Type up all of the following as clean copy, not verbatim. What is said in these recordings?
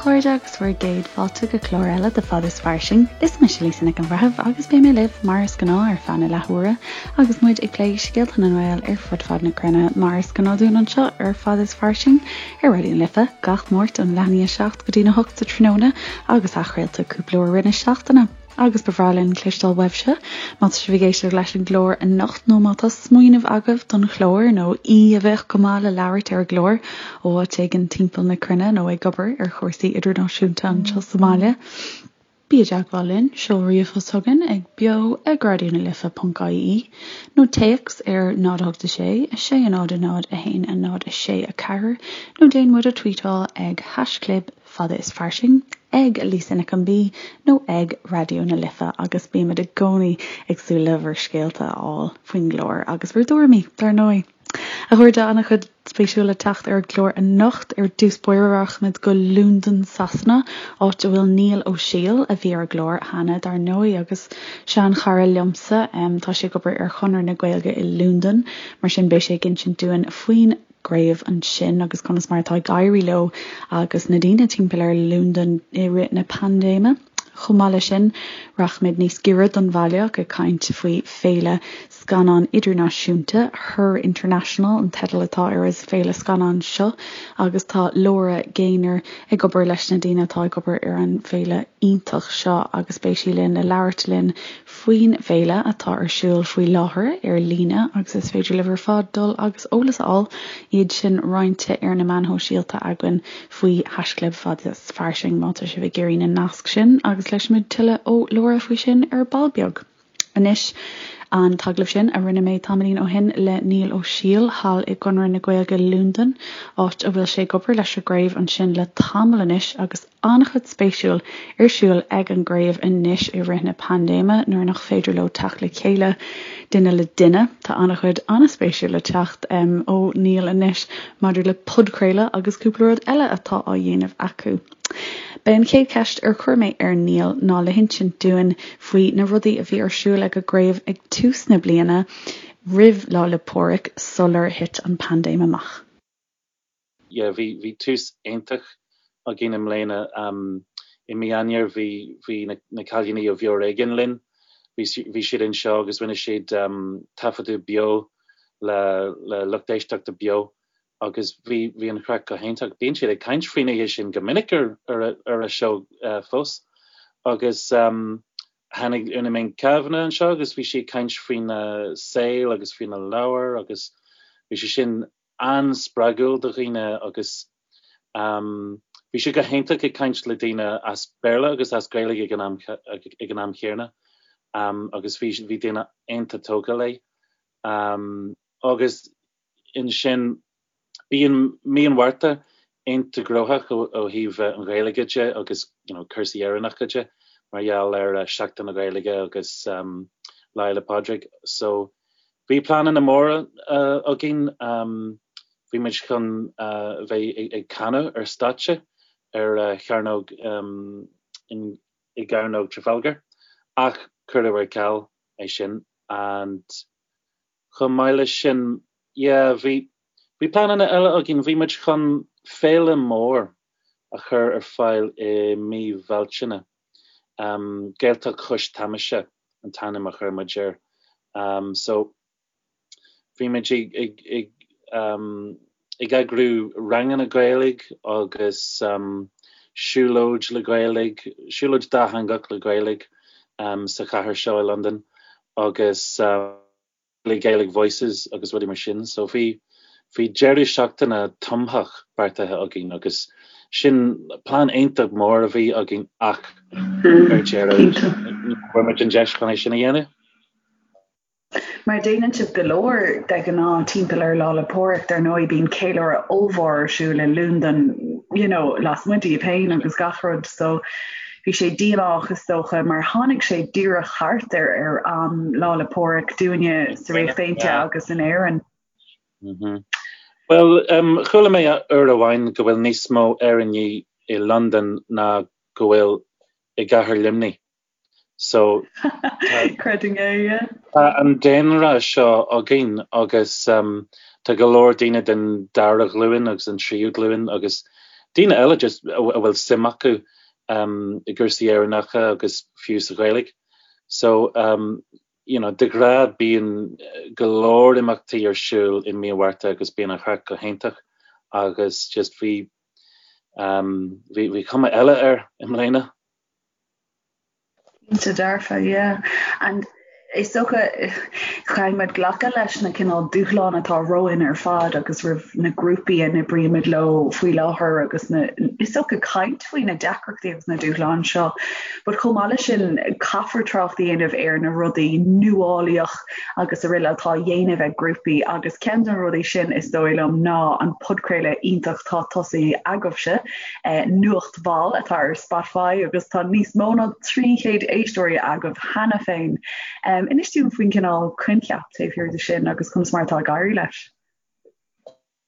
chairde agus bhur gcéad fáilte go clár eile de Fad is Fairsing. Is mise Lisa Nic an Bhreithimh agus beidh mé libh mar is gnáth ar feadh na leathuaire agus muid ag plé scéalta na nGael ar fud fad na cruinne mar is gnáth dúinn anseo ar Fad is Fairsing ar Raidió na Life gach Máirt ón leath i ndiaidh 7 go dtí na 8 sa tráthnóna agus athchraolta cúpla uair i rith na seachtaine. Agus ba bhreá linn cloisteáil uaibhse, má tá sibh ag éisteacht leis an gclár anocht nó má tá smaoineamh agaibh don chlár nó aoi a bheadh go maith le labhairt ar an gclár ó áit éigin timpeall na cruinne nó ag obair ar chúrsaí idirnáisiúnta anseo sa mbaile. Bí i dteagmháil linn, seol ríomhphost chugainn ag beo ag raidionalife.ie nó téacs ar 0 8 6 6 0 0 1 0 6 4 nó déan muid a tweetáil ag haischlib Fada is Fairsing, ag Lisa Nic an B nó ag Raidió na Life agus bímid i gcónaí ag súil le bhur scéalta a fháil faoin gclár agus bhur dtuairimí, dar ndóigh. A chairde, an-chuid spéisiúil le teacht ar an gclár anocht. Ar dtús báire rachaimid go Londain, Sasana, áit a bhfuil Niall Ó Siail, a bhí ar an gclár cheana, dar ndóigh, agus seanchara liomsa. Tá sé ag obair ar Chonradh na Gaeilge i Londain, mar sin beidh sé ag insint dúinn faoin gcraobh ansin agus conas mar atá ag éirí leo agus na daoine timpeall ar Londain i rith na paindéime. Chomh maith leis sin, rachaimid níos giorra don bhaile ach ag caint faoi féile scannán idirnáisiúnta, Her International an teideal atá ar an bhféile scannán seo agus tá Laura Gaynor ag obair leis na daoine atá ag obair ar an bhféile iontach seo agus beidh sí linn le labhairt linn faoin bhféile atá ar siúl faoi láthair ar líne agus is féidir libh ar fad dul agus eolas a fháil, iad sin roinnte ar na meáin shóisialta againn faoi haischlib Fad is Fairsing má tá sibh ag iarraidh na naisc sin agus cloisfimid tuilleadh ó Laura faoi sin ar ball beag. Anois, an t-agallamh sin a rinne mé tamaillín ó shin le Niall Ó Siail thall i gConradh na Gaeilge Londain, áit a bhfuil sé ag obair leis an gcraobh ansin le tamall anois agus an-chuid spéisiúil ar siúl ag an gcraobh anois i rith na paindéime nuair nach féidir leo teacht le chéile duine le duine. Tá an-chuid an-spéisiúil le teacht ó Niall anois maidir le podchraoladh agus cúpla rud eile atá á dhéanamh acu. B'é an chéad cheist ar chuir mé ar Niall ná le hinsint dúinn faoi na rudaí a bhí ar siúl ag an gcraobh ag tús na bliana roimh Lá 'le Pádraig sular thit an paindéim amach. Yeah, bhí, bhí tús iontach againn i mbliana. I mí Eanáir bhí, bhí na, na cailíní ó Bheo Ar Éigean linn. Bhí, bhí siad anseo agus rinne siad taifeadadh beo le, le lucht éisteachta beo agus bhí, bhí an chraic go hiontach. Bíonn siad ag caint faoin oíche sin go minic ar, ar a, ar a seó fós. Agus tháinig Úna Mink Kavanagh anseo agus bhí sí ag caint faoina saol agus faoina leabhar agus bhí sé sin an-spreagúil do dhaoine agus bhí sé go hiontach ag caint le daoine as Béarla agus as Gaeilge ag an am ag an am chéanna agus bhí bhí daoine iontach tógtha léi. Agus ansin bíonn mí an Mhárta iontach gnóthach ó thaobh an Ghaeilge de agus you know cúrsaí Éireannacha de mar gheall ar Seachtain na Gaeilge agus Lá Fhéile Pádraig so Bhí pleananna móra againn. Bhí muid chun bheith ag canadh ar stáitse ar chearnóg i gCearnóg Trafalgar ach cuireadh ar ceal é sin and chomh maith leis sin yeah bhí bhí pleananna eile againn. Bhí muid chun féile mór a chur ar fáil i mí Bhealtaine. Gaeltacht Chois Tamaise an t-ainm a chuir muid air. So bhí muid ag ag ag ag eagrú ranganna Gaeilge agus siúlóid le Gaeilge, siúlóid dátheangach le Gaeilge sa chathair seo i Londain agus. le Gaelic Voices agus rudaí mar sin. So bhí, bhí deireadh seachtaine tumthach beartaithe againn agus sin plean iontach mór a bhí againn ach ar deireadh ní bhfuair muid an deis chun é sin a dhéanamh. Mar déanann sibh go leor de ghnáth timpeall ar Lá 'le Pádraig, dar ndóigh bíonn ceiliúradh ollmhór ar siúl i Londain, you know, lasmuigh díobh féin agus gach rud so Bhí sé díomách is dócha mar tháinig sé díreach thart ar ar am Lá 'le Pádraig dúinne sa Ríocht Aontaithe agus in Éirinn. Bhuel, chuala mé uair amháin go bhfuil níos mó Éireannaigh i Londain ná go bhfuil i gcathair Luimnigh. So Creidim é, yeah. Tá an daonra seo againn agus tá go leor daoine den dara ghlúin agus an tríú glúin agus. daoine eile just a bhfuil suim acu i gcúrsaí Éireannacha agus fiú sa Ghaeilge. So you know de ghnáth bíonn go leor imeachtaí ar siúl i mí an Mhárta agus bíonn an chraic go hiontach agus just bhí bhí bhí cuma eile air i mbliana. Cinnte dearfa, yeah. And is dócha, caithfidh muid glacadh leis na cineál dúshláin atá romhainn ar fad agus roimh na grúpaí a n-oibrímid leo faoi láthair agus na, is dócha caint faoi na deacrachtaí agus na dúshláin seo. But chomh maith leis sin, caithfear trácht a dhéanamh ar na rudaí nuálaíoch agus araile atá á dhéanamh ag grúpaí agus ceann de na rudaí sin is dóigh liom ná an podchraoladh iontach atá tosaithe agaibhse, Nuacht Mhall atá ar Spotify agus tá níos mó ná 300 éisteoirí agaibh cheana féin. Inis dúinn faoin cineál coincheap taobh thiar de sin agus conas mar atá ag éirí leis.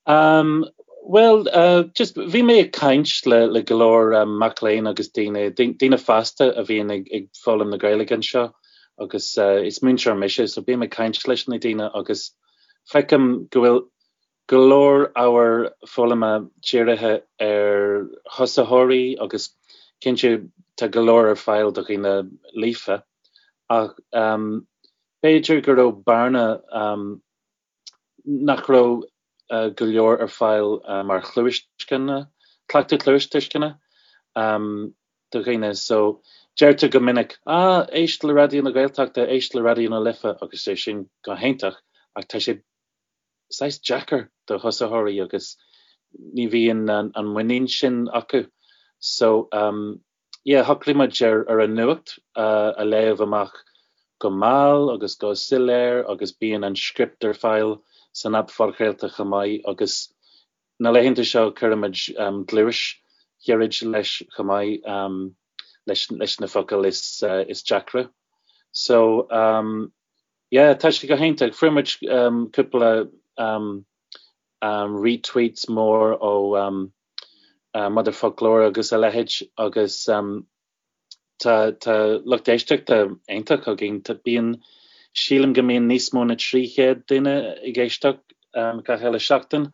Um, bhuel, uh, just bhí mé ag caint le, le go leor um, mac léinn agus daoine, daoine fásta a bhíonn ag, ag foghlaim na Gaeilge anseo agus uh, is múinteoir mise, so bím ag caint leis na daoine agus feicim go bhfuil go leor ábhar foghlama dírithe ar thosaitheoirí agus cinnte tá go leor ar fáil do dhaoine líofa ach um, b'fhéidir go raibh bearna um, nach raibh go leor ar fáil mar chluastuisceana, cleachtadh cluastuisceana do dhaoine. So, deirtear go minic, ah, éist le Raidió na Gaeltachta, éist le Raidió na Life agus é sin go hiontach ach tá sé saghas deacair do thosaitheoirí agus ní bhíonn an muinín sin acu. So, yeah, shocraigh muid ar ar an nuacht a léamh amach go mall agus go soiléir agus bíonn an script ar fáil san aip phodchraolta chomh maith agus na laethanta seo cuirimid gluais ghairid leis chomh maith leis leis na focail is is deacra. So yeah, tá sé go hiontach. Fuair muid cúpla retweets mór ó Motherfoclóir agus a leithéid agus tá tá lucht éisteachta iontach againn. Tá bíonn sílim go mbíonn níos mó na 300 duine ag éisteacht gach uile seachtain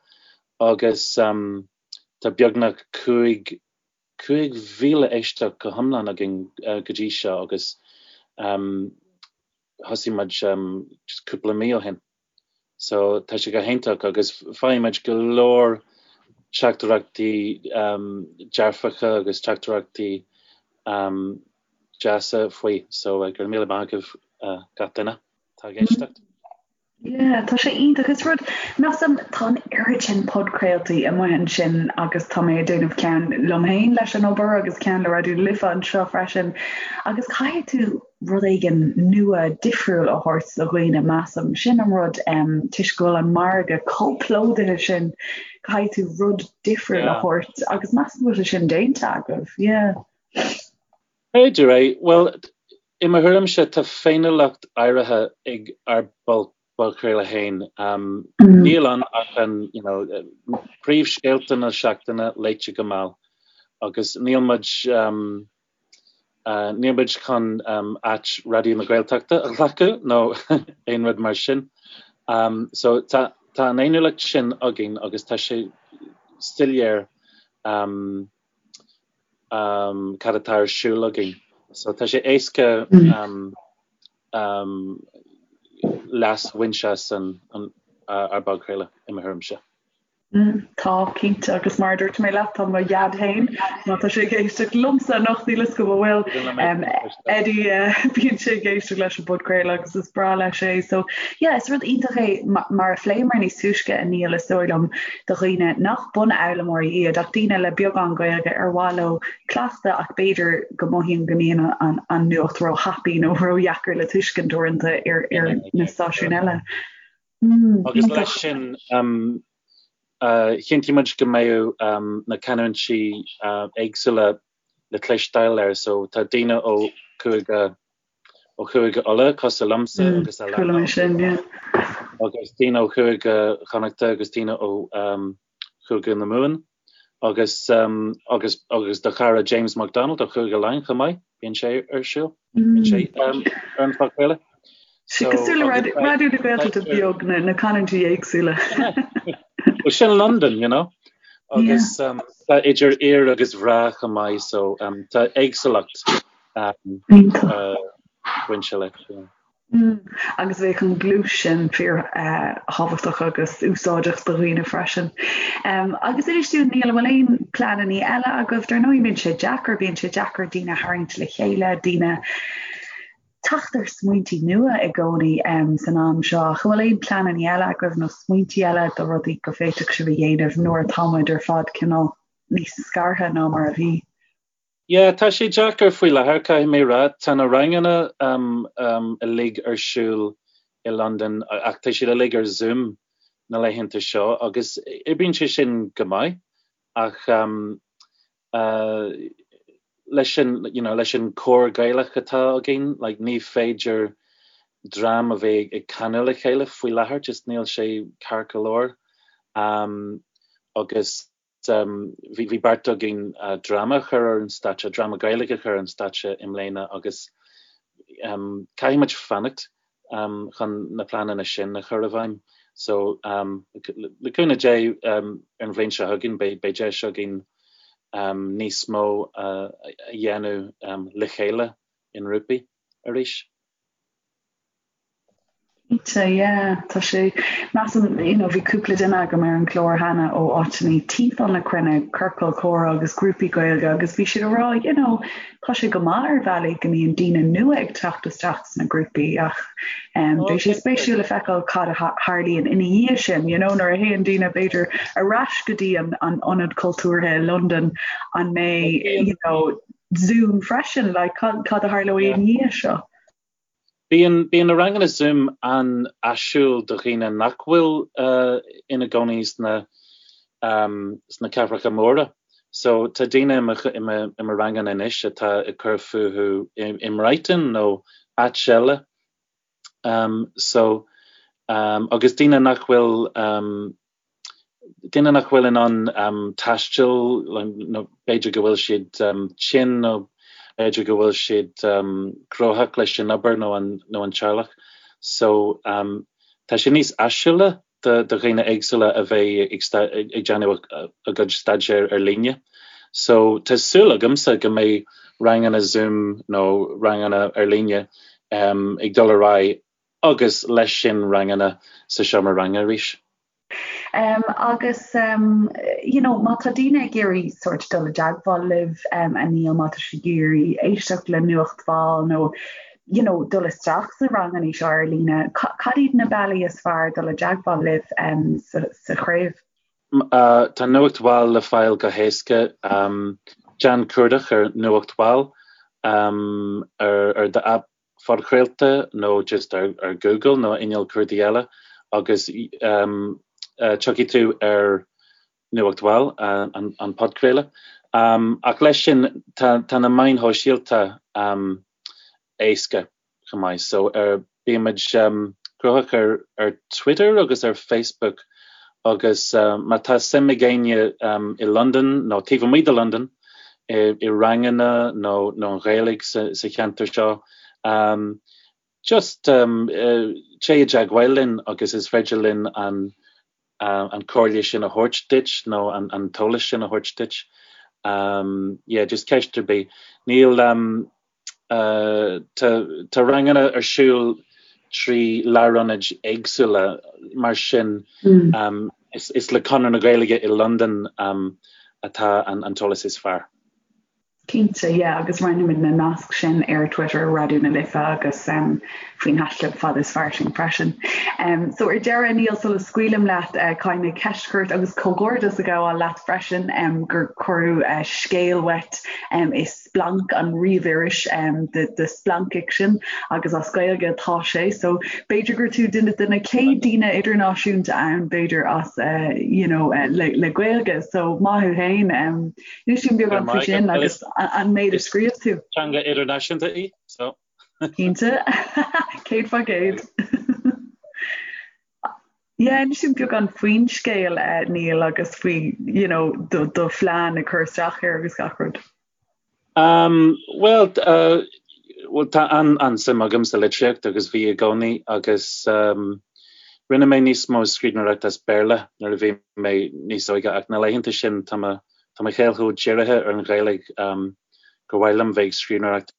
agus tá beagnach 5 5,000 éisteacht go hiomlán againn go dtí seo agus thosaigh muid just cúpla mí ó shin. So tá sé go hiontach agus faighimid go leor teachtaireachtaí dearfacha agus teachtaireachtaí deasa faoi. So go raibh míle maith agaibh gach duine atá ag éisteacht. Yeah, tá sé iontach. Is rud, measaim, tá an oiread sin podchraoltaí amuigh ansin agus tá mé ag déanamh ceann liom féin leis an obair agus ceann le Raidió na Life anseo freisin agus caithfidh tú rud éigin nua difriúil a thabhairt do dhaoine, measaim. Sin an rud, toisc go bhfuil an margadh chomh plódaithe sin, caithfidh tú rud difriúil a thabhairt agus measaim go bhfuil sé sin déanta agaibh. Yeah. B'fhéidir é. Bhuel, i mo thuairimse, tá féiniúlacht áirithe ag ár bpodchraoladh féin. Níl ann ach an, you know, príomhscéalta na seachtaine léite go mall agus níl muid, níl muid chun áit Raidió na Gaeltachta a ghlacadh nó aon rud mar sin. So tá tá an fhéiniúlacht sin againn agus tá sé soiléir cad atá ar siúl againn. So tá sé éasca leas a bhaint as an ár bpodchraoladh i mo thuairimse. Tá, cinnte, agus mar a dúirt mé leat, tá mo dhaid féin, má tá sé ag éisteacht liomsa anocht, níl 'fhios agam an bhfuil, Eddie, bíonn sé ag éisteacht leis an bpodchraoladh agus is breá leis é. So, yeah, is rud iontach é, mar a phléamar níos túisce, a Niall, is dóigh liom, do dhaoine nach bunfhoghlaimeoirí iad ach daoine le beagán Gaeilge ar mhaith leo cleachtadh ach b'fhéidir go mothaíonn go mbíonn an nuacht róthapaidh nó ródheacair le tuiscint uaireanta ar na stáisiúin eile. Agus leis sin, chinntigh muid go mbeadh na canúintí éagsúla le cloisteáil air, so tá daoine ó Chúige ó Chúige Uladh cosúil liomsa agus Chuala mé sin, yeah. Agus daoine ó Chúige Chonnachta agus daoine ó Chúige na Mumhan agus agus agus do chara James McDonald ó Chúige Laighean chomh maith, bíonn sé ar siúl, bíonn sé ar an phodchraoladh. So, Cosúil le Raidió na Gaeltachta beag, na canúintí éagsúla. Well, sin London, you know. Agus tá idir fhir agus mhná chomh maith so tá éagsúlacht bainte leis. Agus bheadh an ghluais sin fíor-thábhachtach agus úsáideach do dhaoine freisin. Agus inis dúinn, Niall, an bhfuil aon pleananna eile agaibh? Dar ndóigh bíonn sé deacair, bíonn sé deacair daoine a tharraingt le chéile, daoine teacht ar smaointí nua i gcónaí san am seo. Ach an bhfuil aon pleananna eile agaibh nó smaointí eile do rudaí go bhféadfadh sibh a dhéanamh nuair atá muid ar fad cineál níos scartha ná mar a bhí? Yeah, tá sé deacair faoi láthair, caithfidh mé a rá. Tá na ranganna uilig ar siúl i Londain ach tá siad uilig ar Zoom na laethanta seo agus oibríonn sé sin go maith ach leis an, you know, leis an cór Gaelach atá againn, like, ní féidir dream a bheith ag canadh le chéile faoi láthair, just níl sé ceart go leor. Agus Bhí beart againn dráma a chur ar an stáitse, dráma Gaeilge a chur ar an stáitse i mbliana agus caithfidh muid fanacht chun na pleananna sin a chur i bhfeidhm. So, le cúnamh Dé, ar an bhliain seo chugainn beidh deis againn níos mó a dhéanamh le chéile i ngrúpaí arís. Cinnte, yeah, tá sé, measaim, you know, bhí cúpla duine agam ar an gclár cheana ó áiteanna timpeall na cruinne, ciorcail chomhrá agus grúpaí Gaeilge agus bhí siad ag rá, you know, tá sé go maith ar bhealaí go mbíonn daoine nua ag teacht isteach sna grúpaí ach um, beidh sé spéisiúil le feiceáil cad a tharlaíonn ina dhiaidh sin, you know, nuair a théann daoine b'fhéidir ar ais go dtí an, an ionad cultúrtha i Londain an mbeidh, you know, Zoom freisin, like, cad, cad a tharlóidh ina dhiaidh seo? Bíonn bíonn na ranganna Zoom an-áisiúil do dhaoine nach bhfuil ina gcónaí sna sna cathracha móra. So tá daoine i mo i mo i mo ranganna anois atá ag cur fúthu i i mBrighton nó áit eile. So agus daoine nach bhfuil Daoine nach bhfuil in ann taisteal, nó b'fhéidir go bhfuil siad tinn nó b'fhéidir go bhfuil siad gnóthach leis an obair nó an nó an teaghlach. So tá sé níos áisiúla do do dhaoine éagsúla a bheith ag ag déanamh a gcuid staidéir ar líne. So tá súil agamsa go mbeidh ranganna Zoom nó ranganna ar líne ag dul ar aghaidh agus leis sin ranganna sa seomra ranga arís. Um, agus um, you know, má tá daoine ag iarraidh sort dul i dteagmháil libh um, a Niall má tá siad ag iarraidh éisteacht le Nuacht Mhall nó you know, dul isteach sna ranganna seo ar líne, cad iad na bealaí is fearr dul i dteagmháil libh um, sa, sa chraobh? Uh, tá Nuacht Mhall le fáil go héasca. Um, déan cuardach ar Nuacht Mhall um, ar, ar do app phodchraolta nó just ar Google nó inneall cuardaigh eile agus tiocfaidh tú ar Nuacht Mhall, an podchraoladh. Ach leis sin, tá na meáin shóisialta éasca chomh maith. So bímid gnóthach ar Twitter agus ar Facebook agus má tá suim ag éinne i Londain nó taobh amuigh de Londain, i ranganna nó nó an Ghaeilge sa cheantar seo. Just téigh i dteagmháil linn agus is féidir linn an an comhairle sin a thabhairt duit nó an an t-eolas sin a thabhairt duit. Yeah, just ceist ar bith. Níl Tá ranganna ar siúl trí lárionaid éagsúla, mar sin is le Conradh na Gaeilge i Londain atá an t-eolas is fearr. Cinnte, yeah, agus roinnfimid na naisc sin ar Twitter Raidió na Life agus faoin haischlib Fada is Fairsing freisin. So ar deireadh, Niall, sula scaoilim leat, caithfidh mé ceist a chur ort agus comhghairdeas a ghabháil leat freisin gur cuireadh scéal uait i Splanc, an ríomhiris de splancfhicsean agus as Gaeilge atá sé so b'fhéidir gur tú duine de na chéad daoine idirnáisiúnta ann b'fhéidir as you know le le Gaeilge so maith thú féin inis dúinn beagán faoi sin agus an méid a scríobh tú. Teanga idirnáisiúnta í so. Cinnte 100%. Yeah, inis dúinn beagán faoin scéal, Niall, agus faoi, you know, do, do phlean ag cur isteach air agus gach rud. Um, well, uh, well tá an, an-suim agam sa litríocht agus bhí i gcónaí agus um, Rinne mé níos mó scríbhneoireachta as Béarla nuair a bhí mé níos óige ach na laethanta sin tá mo tá mo shaol chomh dírithe ar an Ghaeilge gur mhaith liom bheith ag scríbhneoireacht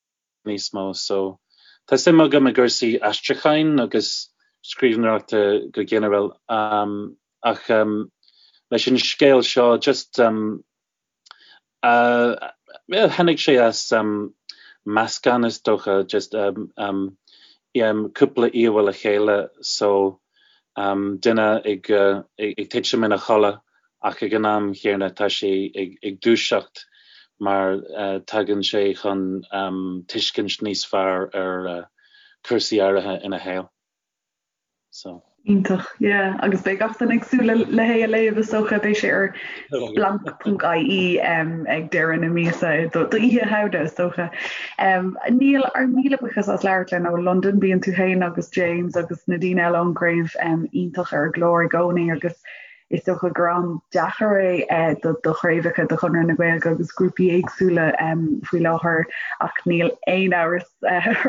níos mó. So tá suim agam i gcúrsaí aistriúcháin agus scríbhneoireachta go ginearál ach leis an scéal seo just Tháinig sé as meascán is dócha, just cúpla íomhá le chéile so duine ag titim ina chodladh ach ag an am chéanna tá sé ag dúiseacht mar tagann sé chun tuiscint níos fearr ar cúrsaí áirithe ina shaol. So. Iontach, yeah. Agus beidh gach duine ag súil le hé a léamh is dócha, beidh sé ar splanc.ie ag deireadh na míosa do Oíche Shamhna is dócha. Niall, ár míle buíochas as labhairt linn ó Londain, bíonn tú féin agus James agus na daoine eile ón gcraobh iontach ar an gclár i gcónaí agus is dócha gur am deacair é do do chraobhacha de Chonradh na Gaeilge agus grúpaí éagsúla faoi láthair ach níl aon amhras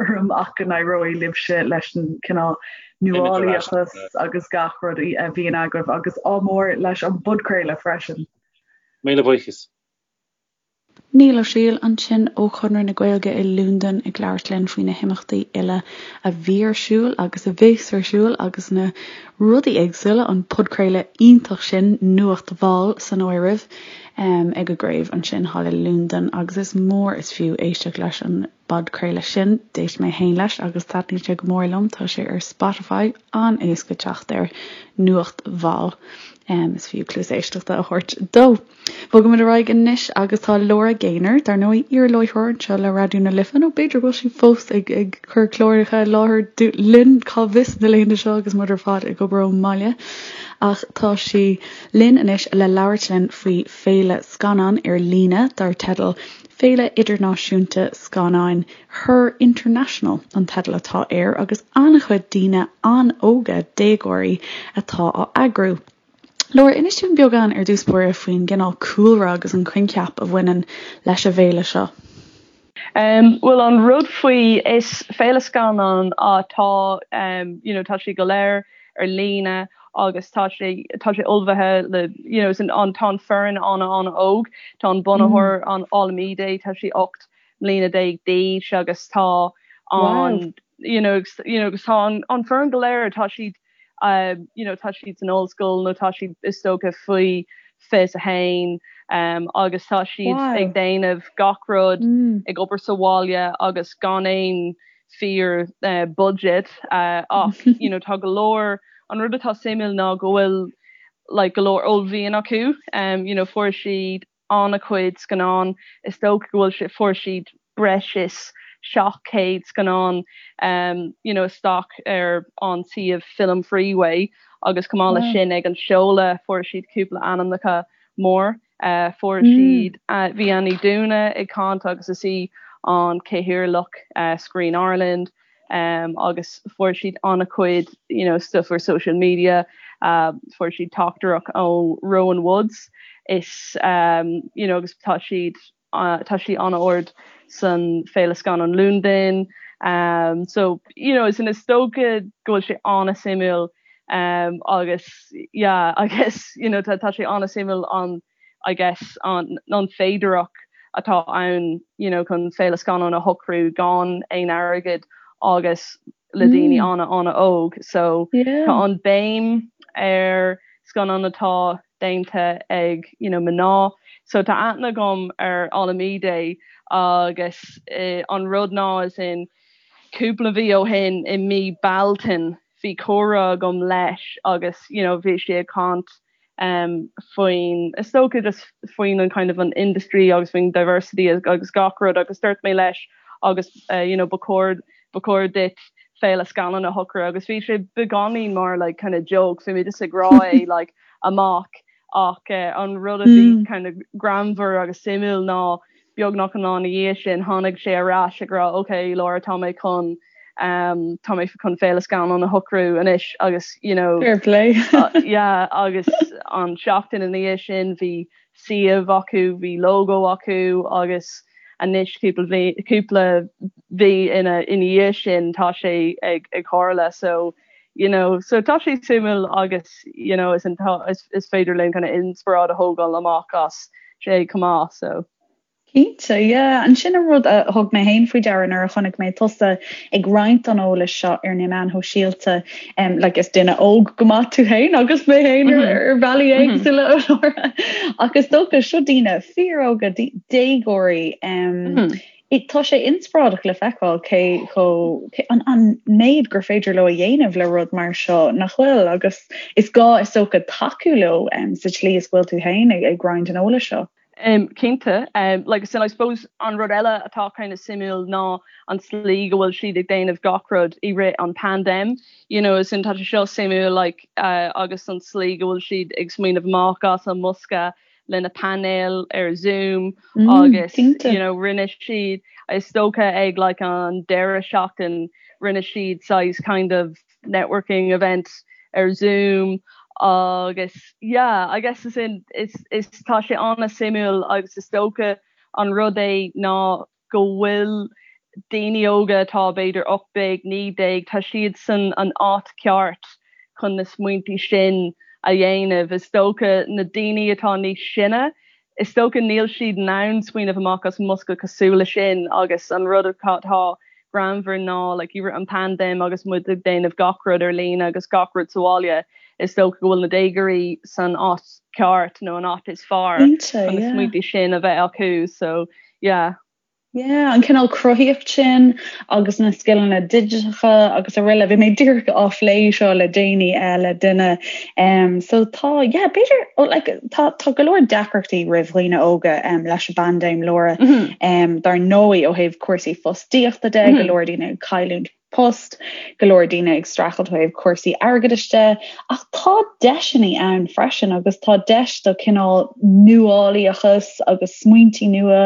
orm ach go n-éireoidh libhse leis an cineál nuálaíochas agus gach rud a bhíonn agaibh agus ádh mór leis an bpodchraoladh freisin. Míle buíochas. Niall Ó Siail ansin ó Chonradh na Gaeilge i Londain ag labhairt linn faoi na himeachtaí uile a bhí ar siúl agus a bheas ar siúl agus na rudaí éagsúla, an podchraoladh iontach sin, Nuacht Mhall san áireamh, ag a gcraobh ansin thall i Londain agus is mór is fiú éisteacht leis an bpodchraoladh sin. D'éist mé féin leis agus taitníonn sé go mór liom. Tá sé ar Spotify, an-éasca teacht air, Nuacht Mhall. Is fiú cluas éisteachta a thabhairt dó. Bogaimid ar aghaidh anois agus tá Laura Gaynor, dar ndóigh, iar-láithreoir anseo le Raidió na Life, nó b'fhéidir go bhfuil sí fós ag ag cur cláracha i láthair linn, cá bhfios na laethanta seo agus muid ar fad ag obair ón mbaile. Ach tá sí linn anois le labhairt linn faoi féile scannán ar líne dar teideal Féile Idirnáisiúnta Scannáin Her International an teideal atá air agus an-chuid daoine an-óga, déagóirí, atá á eagrú. Laura, inis dúinn beagán ar dtús báire faoin gcineál cúlra agus an coincheap a bhaineann leis an bhféile seo. Bhuel an rud faoi, is féile scannán atá you know tá sé go léir ar líne agus tá sé tá sé ullmhaithe le you know an tá an foireann an-an-óg, tá an bunaitheoir an Olamide tá sí 18 mbliana d'aois agus tá an you know you know agus tá an an foireann go léir tá siad you know tá siad san ollscoil nó tá siad is dócha faoi 21 agus tá siad ag déanamh gach rud ag obair sa bhaile agus gan aon fíor budget ach you know tá go leor an rud atá suimiúil ná go bhfuil like go leor uaillmhian acu you know fuair siad an-chuid scannán. Is dócha go bhfuil sé, fuair siad breis is 700 scannán you know isteach ar an suíomh Film Freeway agus chomh maith leis sin ag an seoladh fuair siad cúpla ainmneacha mór. Fuair siad, bhí Ann Ní Dúna ag caint agus is í an cathaoirleach Screen Ireland. agus fuair siad an-chuid you know stuff ar social media, fuair siad teachtaireacht ó Rowan Woods is you know agus tá siad tá sí an-ard san Féile Scannán Londain so you know is is dócha go bhfuil sé an-suimiúil agus yeah I guess you know tá sé an-suimiúil an I guess, an an féidearthacht atá ann you know chun féile scannán a shocrú gan aon airgead agus le daoine an-an-óg. So tá an béim ar scannán atá déanta ag you know mná. So tá aithne agam ar Olamide agus an rud ná as in cúpla mhí ó shin i mí Bealtaine bhí comhrá agam leis agus you know bhí sé ag caint faoin, is dócha just faoin an kind of an industry agus faoin diversity agus gach rud agus dúirt mé leis agus you know ba chóir ba chóir duit féile scannán a shocrú agus bhí sé beagáinín mar like kind of joke bhí mé just ag rá é like amach ach an rud a bhí kind of greannmhar agus suimiúil ná Beagnach an lá ina dhiaidh sin, tháinig sé ar ais ag rá ok Laura tá mé chun tá mé chun féile scannán a shocrú anois agus you know Fair play. yeah agus an seachtain ina dhiaidh sin bhí suíomh acu, bhí logo acu agus anois cúpla mhí cúpla mhí ina ina dhiaidh sin tá sé ag ag tharla so. you know so tá sé suimiúil agus you know is an is, is féidir linn kind of inspioráid a thógáil amach as sé chomh maith so. Cinnte, yeah. An sin an rud a thug mé féin faoi deara nuair a chonaic mé tusa ag roinnt an eolais seo ar na meáin shóisialta. Um, like is duine óg go maith tú féin agus mé féin ar, mm-hmm. ar bhealaí mm-hmm. éagsúla mm-hmm. Ach is dócha seo daoine fíoróga déagóirí um, mm -hmm. Tá sé inspioráideach le feiceáil cé chomh an an méid gur féidir leo a dhéanamh le rud mar seo, nach bhfuil? Agus is gá is dócha tacú leo sa tslí is go bhfuil tú féin ag roinnt an eolais seo. Cinnte. Like as in I suppose an rud eile atá kind of suimiúil ná an tslí go bhfuil siad ag déanamh gach rud i rith an paindéim. You know, as in tá sé seo suimiúil like agus an tslí go bhfuil siad ag smaoineamh amach as an mbosca le na painéil ar Zoom agus you know rinne siad is dócha ag like an deireadh seachtain rinne siad saghas kind of networking event ar Zoom agus yeah I guess as in is is tá sé an-suimiúil agus is dócha an rud é ná go bhfuil daoine óga atá b'fhéidir 18, 19, tá siad san an áit ceart chun na smaointí sin a dhéanamh. Is dócha na daoine atá níos sine, is dócha níl siad in ann smaoineamh amach as an mbosca cosúil le sin agus an rud atá greannmhar ná like i rith an paindéim agus muid ag déanamh gach rud ar líne agus gach rud sa bhaile, is dócha go bhfuil na déagóirí san áit ceart nó an áit is fearr chun na smaointí sin a bheith acu so yeah. Yeah, an cineál cruthaíocht sin agus na scileanna digiteacha agus araile. Bhí mé díreach á phlé seo le déanaí eh, le duine. Um, so tá, yeah, b'fhéidir, oh, like, tá, tá go leor deacrachtaí roimh dhaoine óga um, leis an bpaindéim, Laura. Mm -hmm. um, dar ndóigh ó thaobh cúrsaí fostaíochta de, mm -hmm. go leor daoine ag cailliúint post, go leor daoine ag streachailt ó thaobh cúrsaí airgeadais de, ach tá deiseanna ann freisin agus tá deis do cineál nuálaíochas agus smaointí nua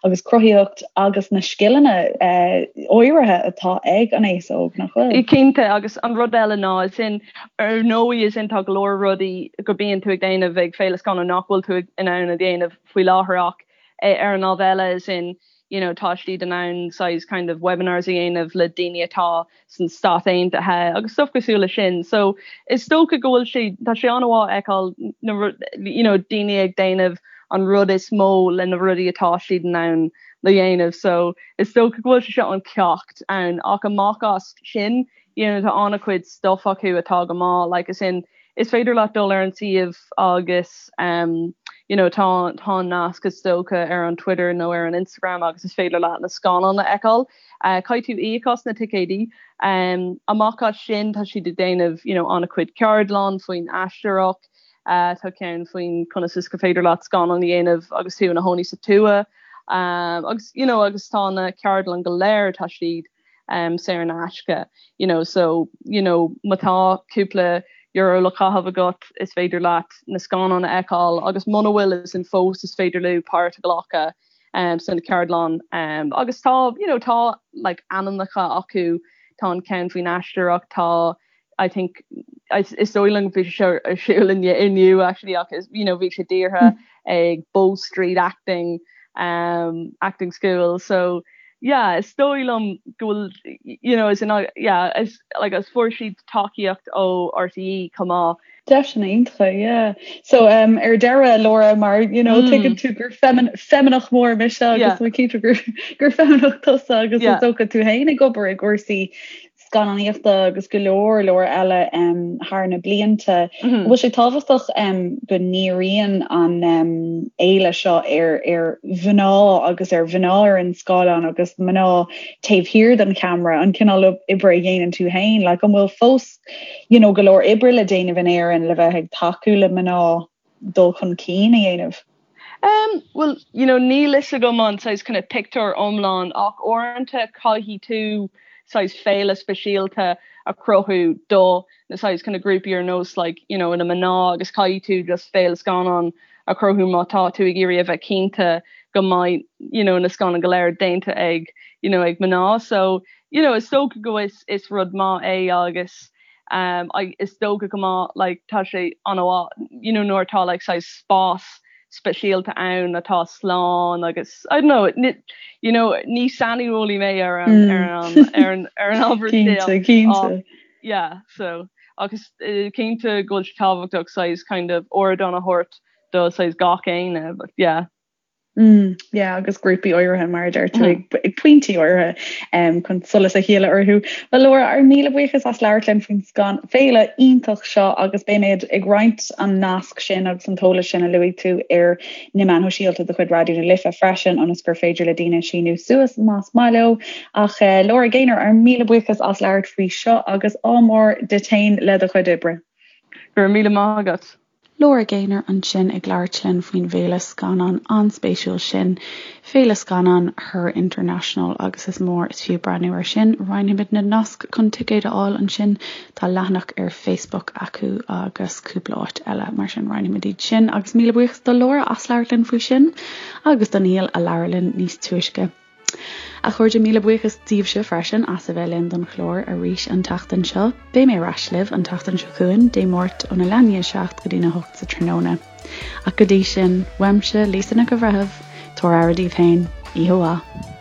agus cruthaíocht agus na scileanna áirithe atá ag an aos óg, nach bhfuil? Cinnte, agus an rud eile ná, as in, ar ndóigh, as in, tá go leor rudaí go bíonn tú ag déanamh ag Féile Scannán nach bhfuil tú in ann a dhéanamh faoi láthair ach ar an lámh eile, as in, you know tá siad in ann saghas kind of webinars a dhéanamh le daoine atá san Stát Aontaithe agus stuff cosúil le sin. So is dócha go bhfuil sé tá sé an-mhaith a fheiceáil na you know daoine ag déanamh an rud is mó le na rudaí atá siad in ann le dhéanamh. So is dócha go bhfuil sé seo an ceacht ann ach amach as sin you know tá an-chuid stuff acu atá go maith like as in is féidir leat dul ar an suíomh agus um you know tá tá an nasc is dócha ar an Twitter nó ar an Instagram agus is féidir leat na scannáin a fheiceáil. Uh, caithfidh tú íoc as na ticéidí. Um, amach as sin tá siad ag déanamh you know, an-chuid ceardlann faoin aisteoireacht, uh, tá ceann faoin conas is go féidir leat scannán a dhéanamh agus tú ina chónaí sa tuath. Um, agus you know, agus tá na ceardlann go léir tá siad um, saor in aisce you know, so you know, má tá cúpla euro le caitheamh agat is féidir leat na scannáin a fheiceáil agus muna bhfuil as in fós is féidir leo páirt a ghlacadh um, san ceardlann um, agus tá you know, tá like, ainmneacha acu tá an ceann faoin aisteoireacht tá I think is dóigh liom bhí sé ar siúl inniu actually ach is you know bhí sé dírithe hmm. ag Bow Street Acting um, acting school so yeah is dóigh liom go bhfuil you know is in yeah is like as fuair siad tacaíocht ó RTÉ chomh maith. Deiseanna iontacha, yeah. So um, ar deireadh Laura mar you know mm. tuigeann tú gur feimineach mór mise agus yeah. cinnte gur gur feimineach tusa agus yeah. is dócha tú féin ag obair i gcúrsaí scannánaíochta agus go leor leor eile thar na blianta. An bhfuil sé tábhachtach go ndíríonn an fhéile seo ar ar mhná agus ar mhná ar an scáileán agus mná taobh thiar den cheamara, an cineál oibre a dhéanann tú féin? Like, an bhfuil fós you know, go leor oibre le déanamh in Éirinn le bheith ag tacú le mná dul chun cinn a dhéanamh? Um, well, you know, níl fhios agam an saghas kind of pictiúr iomlán ach uaireanta caithfidh tú saghas féile speisialta a chruthú do na saghas kind of grúpaí ar nós like, you know, na mná agus caithfidh tú just féile scannán a chruthú má tá tú ag iarraidh a bheith cinnte go mbeidh you know, na scannáin go léir déanta ag you know, ag mná. So, you know, is dócha go is, is rud maith é agus Um, I, is dócha go maith like, tá sé an-mhaith you know, nuair atá like, saghas spás speisialta ann atá slán agus I don't know, ní, you know, ní saineolaí mé ar an, mm. ar an, ar an, ar an ábhar Cinnte, cinnte. Yeah, so. Ach is cinnte go bhfuil sé tábhachtach saghas kind of ardán a thabhairt do saghas gach éinne but yeah. Mm, yeah, agus grúpaí áirithe mar a deir tú ag, ag pointí áirithe um, chun solas a shileadh orthu. Well Laura, ár míle buíochas as labhairt linn faoin scan féile iontach seo agus beimid ag roinnt an nasc sin agus an t-eolas sin a luaigh tú ar na meáin shóisialta de chuid Raidió na Life freisin ionas gur féidir le daoine síniú suas más maith leo. Ach uh, Laura Gaynor, ár míle buíochas as labhairt faoi seo agus ádh mór duit féin le do chuid oibre. Go raibh míle maith agat. Laura Gaynor ansin ag labhairt linn faoin bhféile scannán an-spéisiúil sin, Féile Scannán Her International, agus is mór is fiú breathnú air sin. Roinnfimid na naisc chun ticéid a fháil ansin. Tá leathanach ar Facebook acu agus cúpla áit eile, mar sin roinnfimid iad sin. Agus míle buíochas do Laura as labhairt linn faoi sin agus do Niall a labhair linn níos túisce. A chairde, míle buíochas daoibhse freisin as a bheith linn don chlár arís an tseachtain seo. Beidh mé ar ais libh an tseachtain seo chugainn, Dé Máirt óna leath i ndiaidh a 7 go dtína 8 sa tráthnóna. Ach go dtí sin, uaimse, Lisa Nic an Bhreithimh, tabhair aire daoibh féin. Oíche mhaith.